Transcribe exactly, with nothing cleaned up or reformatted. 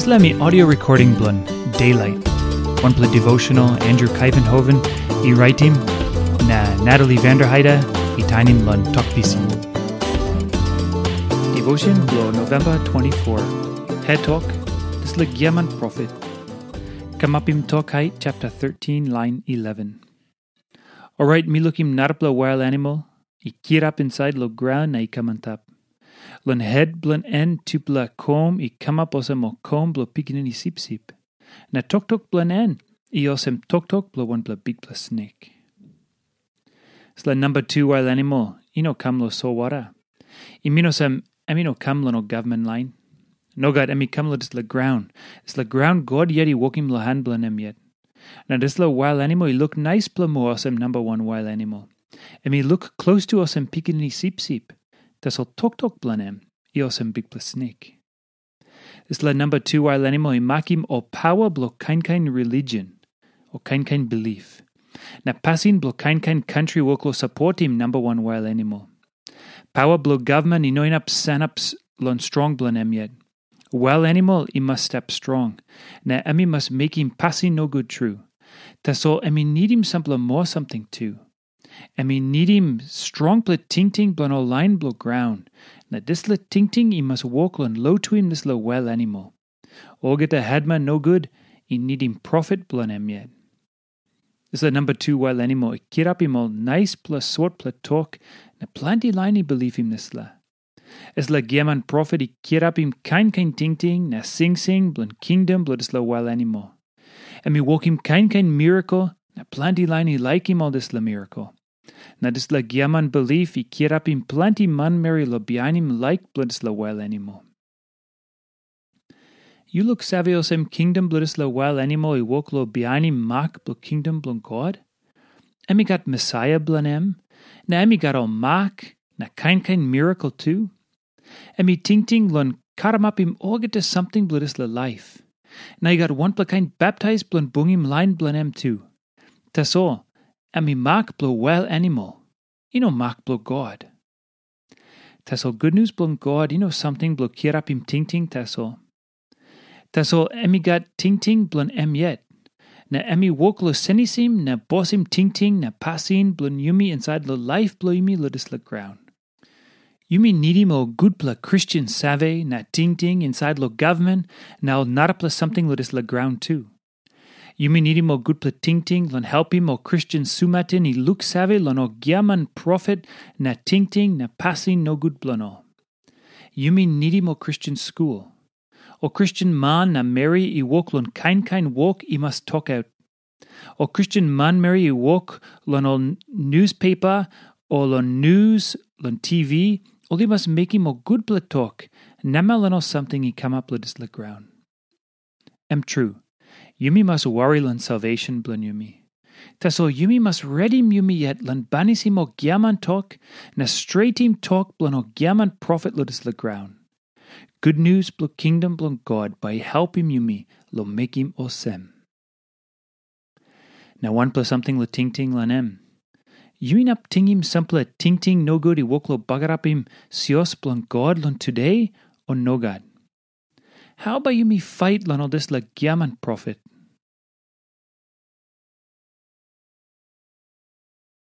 Dispela mi audio recording bilong Daylight. Wanpela devotional Andrew Kaivenhoven i raitim, na Natalie Vanderheide i tainim long Tok Pisin. Devotion bilong November twenty-four. Het tok, dispela giaman profet. Kamapim tok hait chapter thirteen, line eleven. Orait mi lukim narapela wail animal i kirap insait long graun na i kam antap. Long het bilong en tupela kom i kamap olsem ol kom bilong pikinini sipsip. Na toktok bilong en i olsem toktok bilong wanpela bikpela snek. Dispela namba tu wail animal i no kam long solwara. I min olsem em i no kam long ol gavman lain. Nogat, em i kam long dispela graun. Dispela graun God yet i wokim long han bilong em yet. Na dispela wail animal i luk naispela moa olsem namba wan wail animal. Em i luk klostu olsem pikinini sipsip. Tasol toktok bilong em i olsem bikpela snek. Dispela namba tu wail animal i makim ol paua bilong kain kain religion o kain kain bilip. Na pasin bilong kain kain kantri wok long sapotim namba wan wail animal. Paua bilong gavman i no inap sanap long strong bilong em yet. Wail animal i mas stap strong, na em i mas mekim pasin nogut tru. Tasol em i nidim sampela moa samting tu. Em i nidim strongpela tingting bilong ol lain bilong graun, na dispela tingting i mas wok long lotuim dispela wail animal. Olgeta hetman nogut i nidim profet bilong em yet. Dispela namba tu wail animal i kirapim ol naispela sotpela tok, na planti lain i bilipim dispela. Dispela giaman profet i kirapim kain kain tingting na singsing bilong kingdom bilong dispela wail animal. Em i wokim kain kain mirakel, na planti lain i laikim ol dispela mirakel. Na dispela giaman bilip i kirapim planti manmeri long bihainim laik bilong dispela wail animal. Yu luksave olsem kingdom bilong dispela wail animal i wok long bihainim mak bilong kingdom bilong God? Em i gat Mesaia bilong em, na em i gat ol mak na kain kain mirakel tu. Em i tingting long karamapim olgeta samting bilong dispela laip. Na i gat wanpela kain baptais bilong bungim lain bilong em tu. Tasol, em i mak bilong wail animal, i no mak bilong God. Tasol gutnius bilong God i no samting bilong kirapim tingting tasol. Tasol em i gat tingting bilong em yet, na em i wok long senisim na bosim tingting na pasin bilong yumi insait long laip bilong yumi long dispela graun. Yumi nidim ol gutpela Kristen save na tingting insait long gavman na ol narapela samting long dispela graun tu. Yumi nidim ol gutpela tingting long helpim ol Kristen sumatin i luksave long ol giaman profet na tingting na pasin nogut bilong ol. Yumi nidim ol Kristen skul. Ol Kristen man na meri i wok long kain kain wok i mas tokaut. Ol Kristen manmeri i wok long ol nuspepa o long nus long T V, ol i mas mekim ol gutpela tok namel long ol samting i kamap long dispela graun. Em tru, yumi mas wari long salvesen bilong yumi. Tasol yumi mas redim yumi yet long banisim ol giaman tok na stretim tok bilong ol giaman profet long dispela graun. Gutnius bilong kingdom bilong God bai i helpim yumi long mekim olsem. Na wanpela samting long tingting long em. Yu inap tingim sampela tingting nogut i wok long bagarapim sios bilong God long tude, o nogat? Hau bai yumi fait long ol dispela giaman profet?